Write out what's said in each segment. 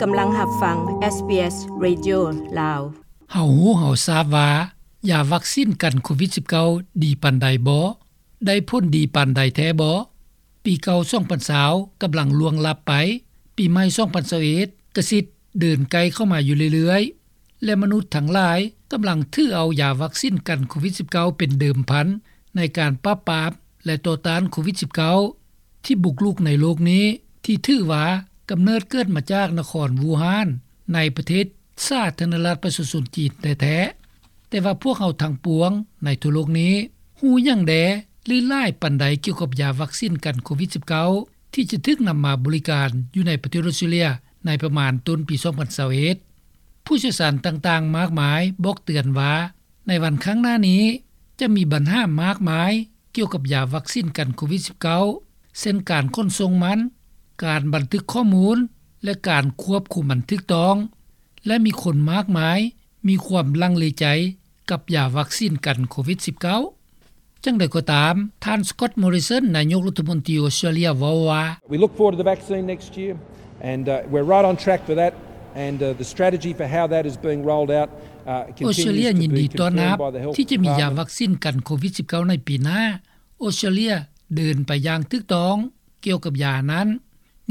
ກຳລັງຮັບຟັງ ເອສບີເອສ ເຣດິໂອ ລາວ. ເຮົາຮູ້ເຮົາຊາບວ່າ ຢາວັກຊິນກັນໂຄວິດສິບເກົ້າ ດີປານໃດບໍ? ໄດ້ຜົນດີປານໃດແທ້ບໍ? ປີເກົ່າສອງພັນຊາວກຳລັງລ່ວງລັບໄປ, ປີໃໝ່ສອງພັນຊາວເອັດກະຊິດເດີນໃກ້ເຂົ້າມາຢູ່ເລື້ອຍໆ ແລະ ມະນຸດທັງຫຼາຍກຳລັງຖືເອົາຢາວັກຊິນກັນໂຄວິດສິບເກົ້າ ເປັນເດີມພັນໃນການປາບປາມ ແລະ ຕໍ່ຕ້ານໂຄວິດສິບເກົ້າ ທີ່ບຸກລຸກໃນໂລກນີ້ ທີ່ຖືວ່າກຳເນີດເກີດມາຈາກນະຄອນວູຮານ ໃນປະເທດສາທາລະນະລັດປະຊາຊົນຈີນແທ້ໆ. ແຕ່ວ່າພວກເຮົາທັງປວງໃນທົ່ວໂລກນີ້ ຮູ້ຫຍັງແດ່ ຫຼື ຫຼາຍປານໃດກ່ຽວກັບຢາວັກຊິນກັນໂຄວິດສິບເກົ້າ ທີ່ຈະຖືກນຳມາບໍລິການຢູ່ໃນປະເທດອອສເຕຣເລັຍ ໃນປະມານຕົ້ນປີສອງພັນຊາວເອັດ? ຜູ້ຊ່ຽວຊານຕ່າງໆມາກມາຍບອກເຕືອນວ່າ ໃນວັນຂ້າງໜ້ານີ້ ຈະມີບັນຫາມາກມາຍກ່ຽວກັບຢາວັກຊິນກັນໂຄວິດສິບເກົ້າ ເຊັ່ນ ການຂົນສົ່ງມັນ, ການບັນທຶກຂໍ້ມູນ ແລະ ການຄວບຄຸມອັນຖືກຕ້ອງ ແລະ ມີຄົນມາກມາຍມີຄວາມລັງເລໃຈກັບຢາວັກຊິນກັນໂຄວິດສິບເກົ້າ. ຈັ່ງໃດກໍຕາມ, ທ່ານ Scott Morrison ນາຍົກລັດຖະມົນຕີອອສເຕຣເລັຍເວົ້າວ່າ We look forward to the vaccine next year and, uh, we're right on track for that and, uh, the strategy for how that is being rolled out, uh, ອອສເຕຣເລັຍຍິນດີຕ້ອນຮັບທີ່ຈະມີຢາວັກຊິນກັນໂຄວິດສິບເກົ້າໃນປີໜ້າ. ອອສເຕຣເລັຍເດີນໄປຢ່າງຖືກຕ້ອງກ່ຽວກັບຢານັ້ນ.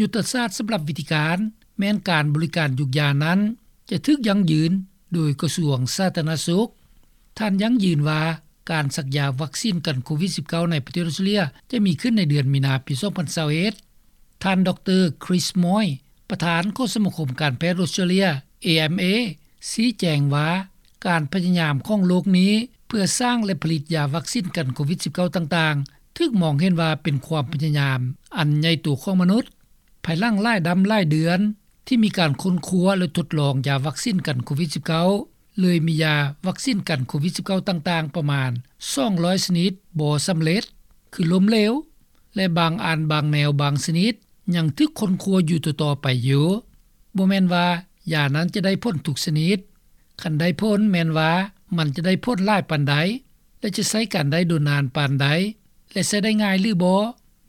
ຍຸດທະສາດສຳລັບວິທີການ ແມ່ນການບໍລິການຢູກຢານັ້ນ ຈະຖືກຢັ້ງຢືນໂດຍກະຊວງສາທາລະນະສຸກ. ທ່ານຢັ້ງຢືນວ່າ ການສັກຢາວັກຊິນກັນໂຄວິດສິບເກົ້າ ໃນປະເທດອອສເຕຣເລັຍ ຈະມີຂຶ້ນໃນເດືອນມີນາປີສອງພັນຊາວເອັດ. ທ່ານ ດຣ Chris Moy ປະທານຂອງສະມາຄົມການແພດອອສເຕຣເລັຍ ເອເອັມເອ ຊີ້ແຈງວ່າ ການພະຍາຍາມຂອງໂລກນີ້ ເພື່ອສ້າງ ແລະ ຜະລິດຢາວັກຊິນກັນໂຄວິດສິບເກົ້າ ຕ່າງໆ ຖືກມອງເຫັນວ່າເປັນຄວາມພະຍາຍາມອັນໃຫຍ່ໂຕຂອງມະນຸດ. ພາຍຫຼັງຫຼາຍດຳຫຼາຍເດືອນ ທີ່ມີການຄົ້ນຄວ້າ ແລະ ທົດລອງຢາວັກຊິນກັນໂຄວິດສິບເກົ້າ ເລີຍມີຢາວັກຊິນກັນໂຄວິດສິບເກົ້າ ຕ່າງໆປະມານສອງຮ້ອຍຊະນິດບໍ່ສຳເລັດ ຄືລົ້ມເຫຼວ ແລະ ບາງອັນບາງແນວບາງຊະນິດ ຍັງຖືກຄົ້ນຄວ້າຢູ່ຕໍ່ໆໄປຢູ່. ບໍ່ແມ່ນວ່າຢານັ້ນຈະໄດ້ຜົນທຸກຊະນິດ. ຄັນໄດ້ຜົນແມ່ນວ່າມັນຈະໄດ້ຜົນຫຼາຍປານໃດ ແລະ ຈະໃຊ້ການໄດ້ດົນນານປານໃດ ແລະ ໃຊ້ໄດ້ງ່າຍຫຼືບໍ່,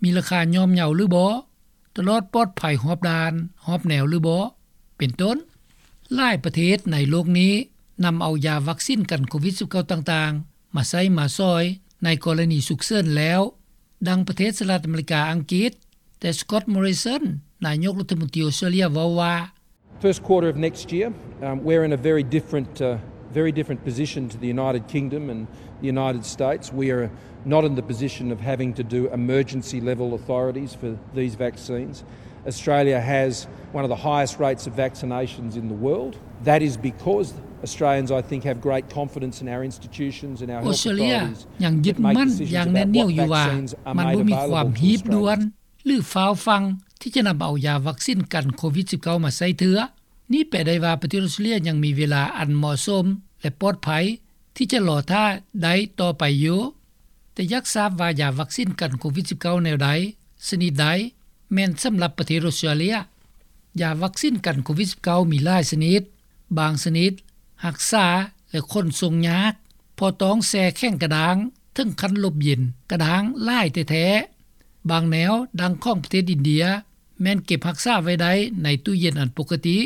ມີລາຄາຍ່ອມເຍົາຫຼືບໍ່, ຕະຫຼອດປອດໄພຮອບດ້ານຮອບແນວຫຼືບໍ່ ເປັນຕົ້ນ. ຫຼາຍປະເທດໃນໂລກນີ້ນຳເອົາຢາວັກຊິນກັນໂຄວິດສິບເກົ້າ ຕ່າງໆ ມາໃຊ້ມາສອຍໃນກໍລະນີສຸກເສີນແລ້ວ, ດັ່ງປະເທດສະຫະລັດອາເມລິກາ, ອັງກິດ, ແຕ່ Scott Morrison ນາຍົກລັດຖະມົນຕີອອສເຕຣເລັຍເວົ້າວ່າ First quarter of next year, um, we're in a very different, uh, very different position to the United Kingdom and the United States. We are not in the position of having to do emergency level authorities for these vaccines. Australia has one of the highest rates of vaccinations in the world. That is because Australians, I think, have great confidence in our institutions and our health authorities. ອອສເຕຣເລັຍຍັງຍຶດໝັ້ນຢ່າງແໜ້ນໜຽວຢູ່ວ່າ ມັນບໍ່ມີຄວາມຮີບດ່ວນ ຫຼື ຟ້າວຟັ່ງທີ່ຈະນຳເອົາຢາວັກຊິນກັນໂຄວິດສິບເກົ້າ ມາໃຊ້ເທື່ອ. ນີ້ແປໄດ້ວ່າປະເທດອອສເຕຣເລັຍຍັງມີເວລາອັນເໝາະສົມ ແລະ ປອດໄພທີ່ຈະລໍຖ້າໄດ້ຕໍ່ໄປຢູ່. ແຕ່ຢາກຊາບວ່າຢາວັກຊິນກັນໂຄວິດສິບເກົ້າ ແນວໃດ, ຊະນິດໃດ ແມ່ນສຳລັບປະເທດອອສເຕຣເລັຍ? ຢາວັກຊິນກັນໂຄວິດສິບເກົ້າ ມີຫຼາຍຊະນິດ. ບາງຊະນິດຮັກສາ ແລະ ຂົນສົ່ງຍາກ ເພາະຕ້ອງແຊ່ແຂງກະດ້າງເຖິງຂັ້ນລົບເຢັນກະດ້າງຫຼາຍແທ້ໆ. ບາງແນວ ດັ່ງຂອງປະເທດອິນເດຍ ແມ່ນເກັບຮັກສາໄວ້ໄດ້ໃນຕູ້ເຢັນອັນປົກກະຕິ.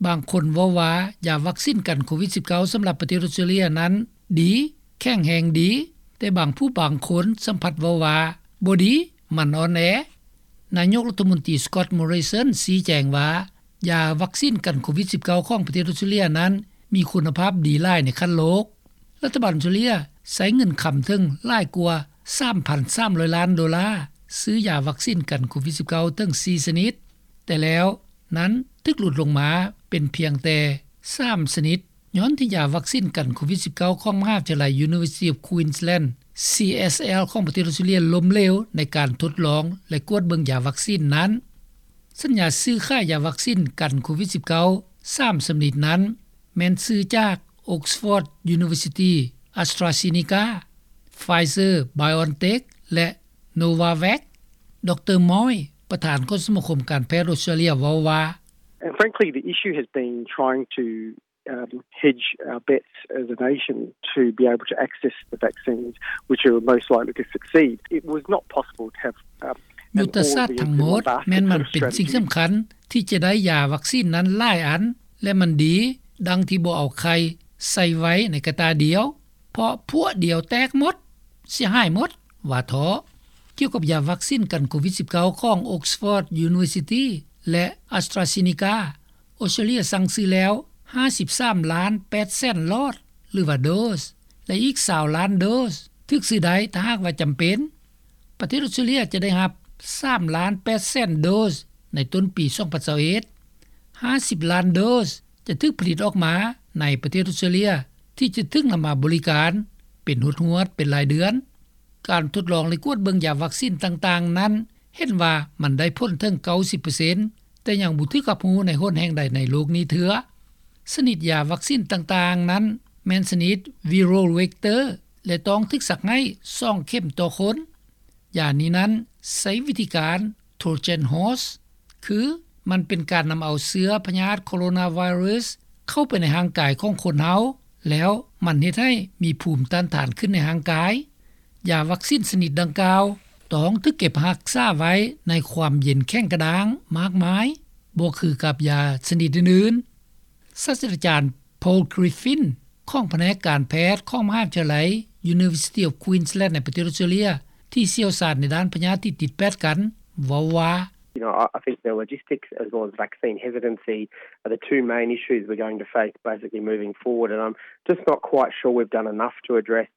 ບາງຄົນເວົ້າວ່າຢາວັກຊິນກັນໂຄວິດສິບເກົ້າ ສຳລັບປະເທດອອສເຕຣເລັຍນັ້ນດີ, ແຂງແຮງດີ, ແຕ່ບາງຜູ້ບາງຄົນສຳພັດເວົ້າວ່າບໍ່ດີ, ມັນອ່ອນແອ. ນາຍົກລັດຖະມົນຕີ Scott Morrison ຊີ້ແຈງວ່າ ຢາວັກຊິນກັນໂຄວິດສິບເກົ້າ ຂອງປະເທດອອສເຕຣເລັຍນັ້ນມີຄຸນນະພາບດີຫຼາຍໃນຂັ້ນໂລກ. ລັດຖະບານອອສເຕຣເລັຍໃຊ້ເງິນຄຳເຖິງຫຼາຍກວ່າສາມພັນສາມຮ້ອຍລ້ານໂດລາ ຊື້ຢາວັກຊິນກັນໂຄວິດສິບເກົ້າ ເຖິງສີ່ຊະນິດ, ແຕ່ແລ້ວນັ້ນຖືກຫຼຸດລົງມາເປັນພຽງແຕ່ສາມຊະນິດ ຍ້ອນທີ່ຢາວັກຊິນກັນໂຄວິດສິບເກົ້າ ຂອງມະຫາວິທະຍາໄລ University of Queensland CSL ຂອງປະເທດອອສເຕຣເລັຍລົ້ມເຫຼວໃນການທົດລອງ ແລະ ກວດເບິ່ງຢາວັກຊິນນັ້ນ. ສັນຍາຊື້ຂາຍຢາວັກຊິນກັນໂຄວິດສິບເກົ້າ ສາມຊະນິດນັ້ນ ແມ່ນຊື້ຈາກ Oxford University, AstraZeneca, Pfizer-BioNTech ແລະ Novavax. ດຣ Moy ປະທານຂອງສະມາຄົມການແພດອອສເຕຣເລັຍເວົ້າວ່າ And frankly, the issue has been trying to, um, hedge our bets as a nation to be able to access the vaccines which are most likely to succeed. It was not possible to have, um, ຍຸດທະສາດທັງໝົດ ແມ່ນມັນເປັນສິ່ງສຳຄັນ ທີ່ຈະໄດ້ຢາວັກຊີນນັ້ນຫຼາຍອັນ ແລະມັນດີ ດັ່ງທີ່ບໍ່ເອົາໄຂ່ໃສ່ໄວ້ໃນກະຕ່າດຽວ ເພາະພວກດຽວແຕກໝົດ ເສຍຫາຍໝົດ ວ່າເທາະ. ກ່ຽວກັບຢາວັກຊີນກັນໂຄວິດ-19 ຂອງ Oxford University ແລະ AstraZeneca, ອອສເຕຣເລັຍສັ່ງຊື້ແລ້ວ ຫ້າສິບສາມລ້ານແປດແສນຫຼອດ ຫຼືວ່າໂດສ ແລະອີກ ຊາວລ້ານໂດສ ຖືກຊື້ໄດ້ ຖ້າຫາກວ່າຈຳເປັນ. ປະເທດອອສເຕຣເລັຍຈະໄດ້ຮັບ ສາມລ້ານແປດແສນໂດສ ໃນຕົ້ນປີ ສອງພັນຊາວເອັດ. ຫ້າສິບລ້ານໂດສ ຈະຖືກຜະລິດອອກມາ ໃນປະເທດອອສເຕຣເລັຍ ທີ່ຈະຖືກນຳມາບໍລິການ ເປັນຮວດໆ ເປັນລາຍເດືອນ. ການທົດລອງ ແລະກວດເບິ່ງຢາວັກຊີນຕ່າງໆນັ້ນ ເຫັນວ່າມັນໄດ້ຜົນເຖິງ ເກົ້າສິບເປີເຊັນ ແຕ່ຍັງບໍ່ຖືກຮັບຮູ້ໃນຫົນແຫ່ງໃດໃນໂລກນີ້ເທື່ອ. ຊະນິດຢາວັກຊີນຕ່າງໆນັ້ນ ແມ່ນຊະນິດ viral vector ແລະຕ້ອງຖືກສັກໃຫ້ ສອງເຂັມຕໍ່ຄົນ. ຢານີ້ນັ້ນໃຊ້ວິທີການ Trojan horse ຄືມັນເປັນການນຳເອົາເຊື້ອພະຍາດໂຄໂຣນາໄວຣັສ ເຂົ້າໄປໃນຮ່າງກາຍຂອງຄົນເຮົາ ແລ້ວມັນເຮັດໃຫ້ມີພູມຕ້ານທານຂຶ້ນໃນຮ່າງກາຍ. ຢາວັກຊີນຊະນິດດັ່ງກ່າວ ຕ້ອງຖືກເກັບຮັກສາໄວ້ໃນຄວາມເຢັນແຂງກະດ້າງມາກມາຍ ບໍ່ຄືກັບຢາຊະນິດອື່ນໆ. ສາດສະດາຈານ Paul Griffin ຂອງພະແນກການແພດຂອງມະຫາວິທະຍາໄລ University of Queensland ໃນປະເທດອອສເຕຣເລັຍ ທີ່ຊ່ຽວຊານໃນດ້ານພະຍາດທີ່ຕິດແປດກັນ ເວົ້າວ່າ: You know, I think the logistics as well as vaccine hesitancy are the two main issues we're going to face basically moving forward, and I'm just not quite sure we've done enough to address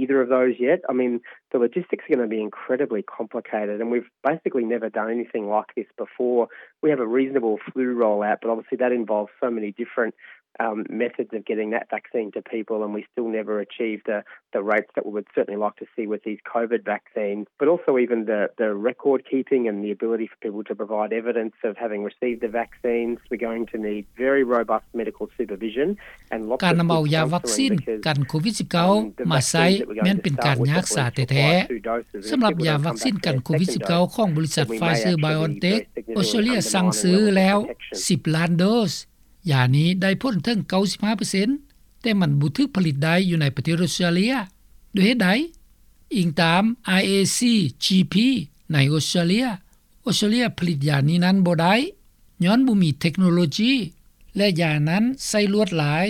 either of those yet. I mean, the logistics are going to be incredibly complicated, and we've basically never done anything like this before. We have a reasonable flu rollout, but obviously that involves so many different um, methods of getting that vaccine to people, and we still never achieve the, the rates that we would certainly like to see with these COVID vaccines, but also even the, the record keeping and the ability for people to provide evidence of having received the vaccines. We're going to need very robust medical supervision and lots of good counselling because, um, the vaccines that we're going to start with at the moment are two doses of the vaccine, and people are going to come back for a second dose, and we may actually need those signals to undermine any very significant protection. ການນຳເອົາຢາວັກຊີນກັນໂຄວິດ-19 ມາໃຊ້ແມ່ນເປັນການຍາກສາແທ້ໆ. ສຳລັບຢາວັກຊີນກັນໂຄວິດ-19 ຂອງບໍລິສັດ Pfizer BioNTech ອອສເຕຣເລັຍສັ່ງຊື້ແລ້ວ ສິບລ້ານໂດສ. ຢານີ້ໄດ້ຜົນເຖິງ ເກົ້າສິບເປີເຊັນ ແຕ່ມັນບໍ່ຖືກຜະລິດໄດ້ຢູ່ໃນປະເທດອອສເຕຣເລັຍ. ດ້ວຍເຫດໃດ? ອີງຕາມ IACGP ໃນອອສເຕຣເລັຍ, ອອສເຕຣເລັຍຜະລິດຢານີ້ນັ້ນບໍ່ໄດ້ ຍ້ອນບໍ່ມີເທັກໂນໂລຈີ ແລະ ຢານັ້ນໃຊ້ລວດລາຍ,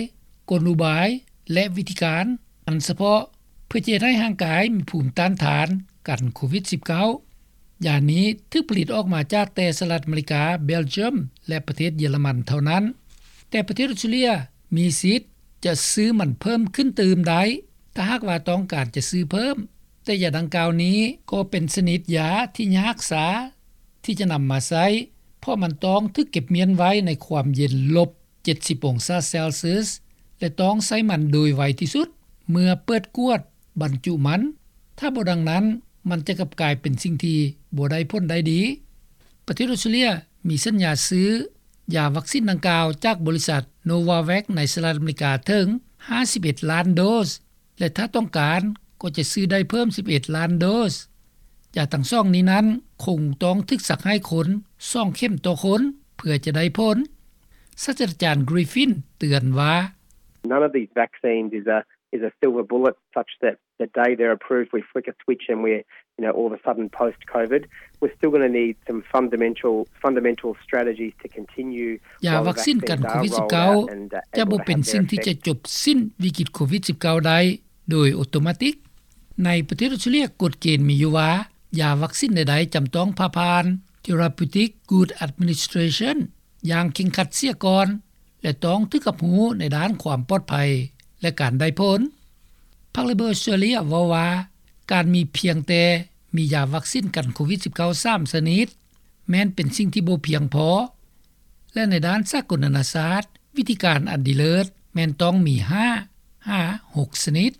ກົນອຸບາຍ ແລະ ວິທີການອັນສະເພາະ ເພື່ອຈະເຮັດໃຫ້ຮ່າງກາຍມີພູມຕ້ານທານກັນໂຄວິດ-19. ຢານີ້ຖືກຜະລິດອອກມາຈາກແຕ່ສະຫະລັດອາເມລິກາ, ເບລຈຽມ ແລະ ປະເທດເຢຍລະມັນເທົ່ານັ້ນ, ແຕ່ປະເທດອອສເຕຣເລັຍມີສິດຈະຊື້ມັນເພີ່ມຂຶ້ນຕື່ມໄດ້ ຖ້າຫາກວ່າຕ້ອງການຈະຊື້ເພີ່ມ. ແຕ່ຢາດັ່ງກ່າວນີ້ກໍເປັນຊະນິດຢາທີ່ຍາກສາທີ່ຈະນຳມາໃຊ້ ເພາະມັນຕ້ອງຖືກເກັບມ້ຽນໄວ້ໃນຄວາມເຢັນລົບ ເຈັດສິບອົງສາເຊລຊຽສ ແລະ ຕ້ອງໃຊ້ມັນໂດຍໄວທີ່ສຸດ ເມື່ອເປີດກວດບັນຈຸມັນ, ຖ້າບໍ່ດັ່ງນັ້ນ ມັນຈະກັບກາຍເປັນສິ່ງທີ່ບໍ່ໄດ້ຜົນໄດ້ດີ. ປະເທດອອສເຕຣເລັຍມີສັນຍາຊື້ຢາວັກຊີນດັ່ງກ່າວຈາກບໍລິສັດ ໂນວາແວັກ ໃນສະຫະລັດອາເມລິກາເຖິງ ຫ້າສິບເອັດລ້ານໂດສ ແລະ ຖ້າຕ້ອງການກໍຈະຊື້ໄດ້ເພີ່ມ ສິບເອັດລ້ານໂດສ. ຢາທັງສອງນີ້ນັ້ນຄົງຕ້ອງຖືກສັກໃຫ້ຄົນ ສອງເຂັມຕໍ່ຄົນ ເພື່ອຈະໄດ້ຜົນ. ສາດສະດາຈານ Griffin ເຕືອນວ່າ: None of these vaccines is a, is a silver bullet such that the day they're approved, we flick a switch and we're, you know, all of a sudden post-COVID. We're still going to need some fundamental, fundamental strategies to continue. ຢາວັກຊີນກັນໂຄວິດ-19 ຈະບໍ່ເປັນສິ່ງທີ່ຈະຈົບສິ້ນວິກິດໂຄວິດ-19 ໄດ້ໂດຍໂອໂຕມາຕິກ. ໃນປະເທດອອສເຕຣເລັຍ ກົດເກນມີຢູ່ວ່າ ຢາວັກຊີນໃດໆຈຳຕ້ອງຜ່າຜ່ານ Therapeutic Goods Administration ຢ່າງເຄັ່ງຄັດເສຍກ່ອນ ແລະ ຕ້ອງຖືກຮັບຮູ້ໃນດ້ານຄວາມປອດໄພ ແລະ ການໄດ້ຜົນ. ພັກ Labor ອອສເຕຣເລັຍເວົ້າວ່າ ການມີພຽງແຕ່ມີຢາວັກຊີນກັນໂຄວິດ-19 ສາມຊະນິດ ແມ່ນເປັນສິ່ງທີ່ບໍ່ພຽງພໍ ແລະ ໃນດ້ານສາກົນນານາຊາດ ວິທີການອັນດີເລີດແມ່ນຕ້ອງມີ ຫ້າ ຫາ ຫົກຊະນິດ.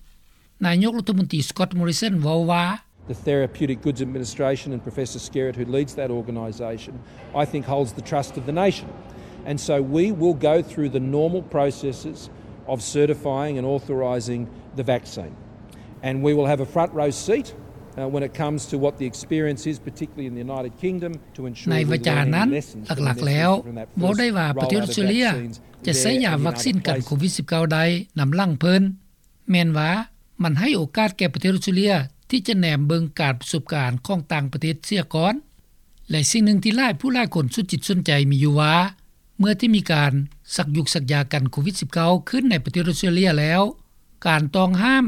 ນາຍົກລັດຖະມົນຕີ Scott Morrison ເວົ້າວ່າ: The Therapeutic Goods Administration and Professor Skerritt, who leads that organisation, I think holds the trust of the nation. And so we will go through the normal processes of certifying and authorising the vaccine. And we will have a front row seat, uh, when it comes to what the experience is, particularly in the United Kingdom, to ensure we learn any lessons from this, from that first rollout of vaccines there. ໃນວາຈານັ້ນ ຫຼັກໆແລ້ວ ເວົ້າໄດ້ວ່າປະເທດອອສເຕຣເລັຍຈະໃຊ້ຢາວັກຊີນກັນໂຄວິດ-19 ໄດ້ນຳຫຼັງເພິ່ນ. ແມ່ນວ່າມັນໃຫ້ໂອກາດແກ່ປະເທດອອສເຕຣເລັຍທີ່ຈະແນມເບິ່ງການປະສົບການຂອງຕ່າງປະເທດເສຍກ່ອນ. ແລະສິ່ງໜຶ່ງທີ່ຫຼາຍຜູ້ຫຼາຍຄົນສຸດຈິດສຸດໃຈມີຢູ່ວ່າ ເມື່ອທີ່ມີການສັກຢຸກສັກຢາກັນໂຄວິດ-19 ຂຶ້ນໃນປະເທດອອສເຕຣເລັຍແລ້ວ ການຕ້ອງຫ້າມ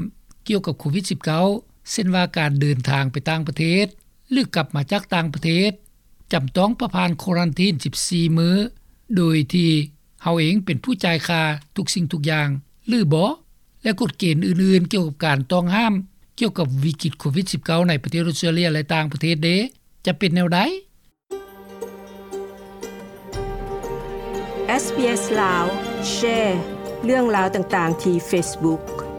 ກ່ຽວກັບໂຄວິດ-19 ເຊັ່ນວ່າການເດີນທາງໄປຕ່າງປະເທດ ຫຼືກັບມາຈາກຕ່າງປະເທດ ຈຳຕ້ອງປະຜ່ານຄວາຣັນທີນ 14 ມື້ ໂດຍທີ່ເຮົາເອງເປັນຜູ້ຈ່າຍຄ່າທຸກສິ່ງທຸກຢ່າງ ຫຼືບໍ່ ແລະກົດເກນອື່ນໆກ່ຽວກັບການຕ້ອງຫ້າມ ກ່ຽວກັບວິກິດໂຄວິດ-19 ໃນປະເທດອອສເຕຣເລັຍ ແລະຕ່າງປະເທດເດ ຈະເປັນແນວໃດ? ເອສບີເອສລາວ ແຊເລື່ອງລາວຕ່າງໆທີ່ເຟສບຸກ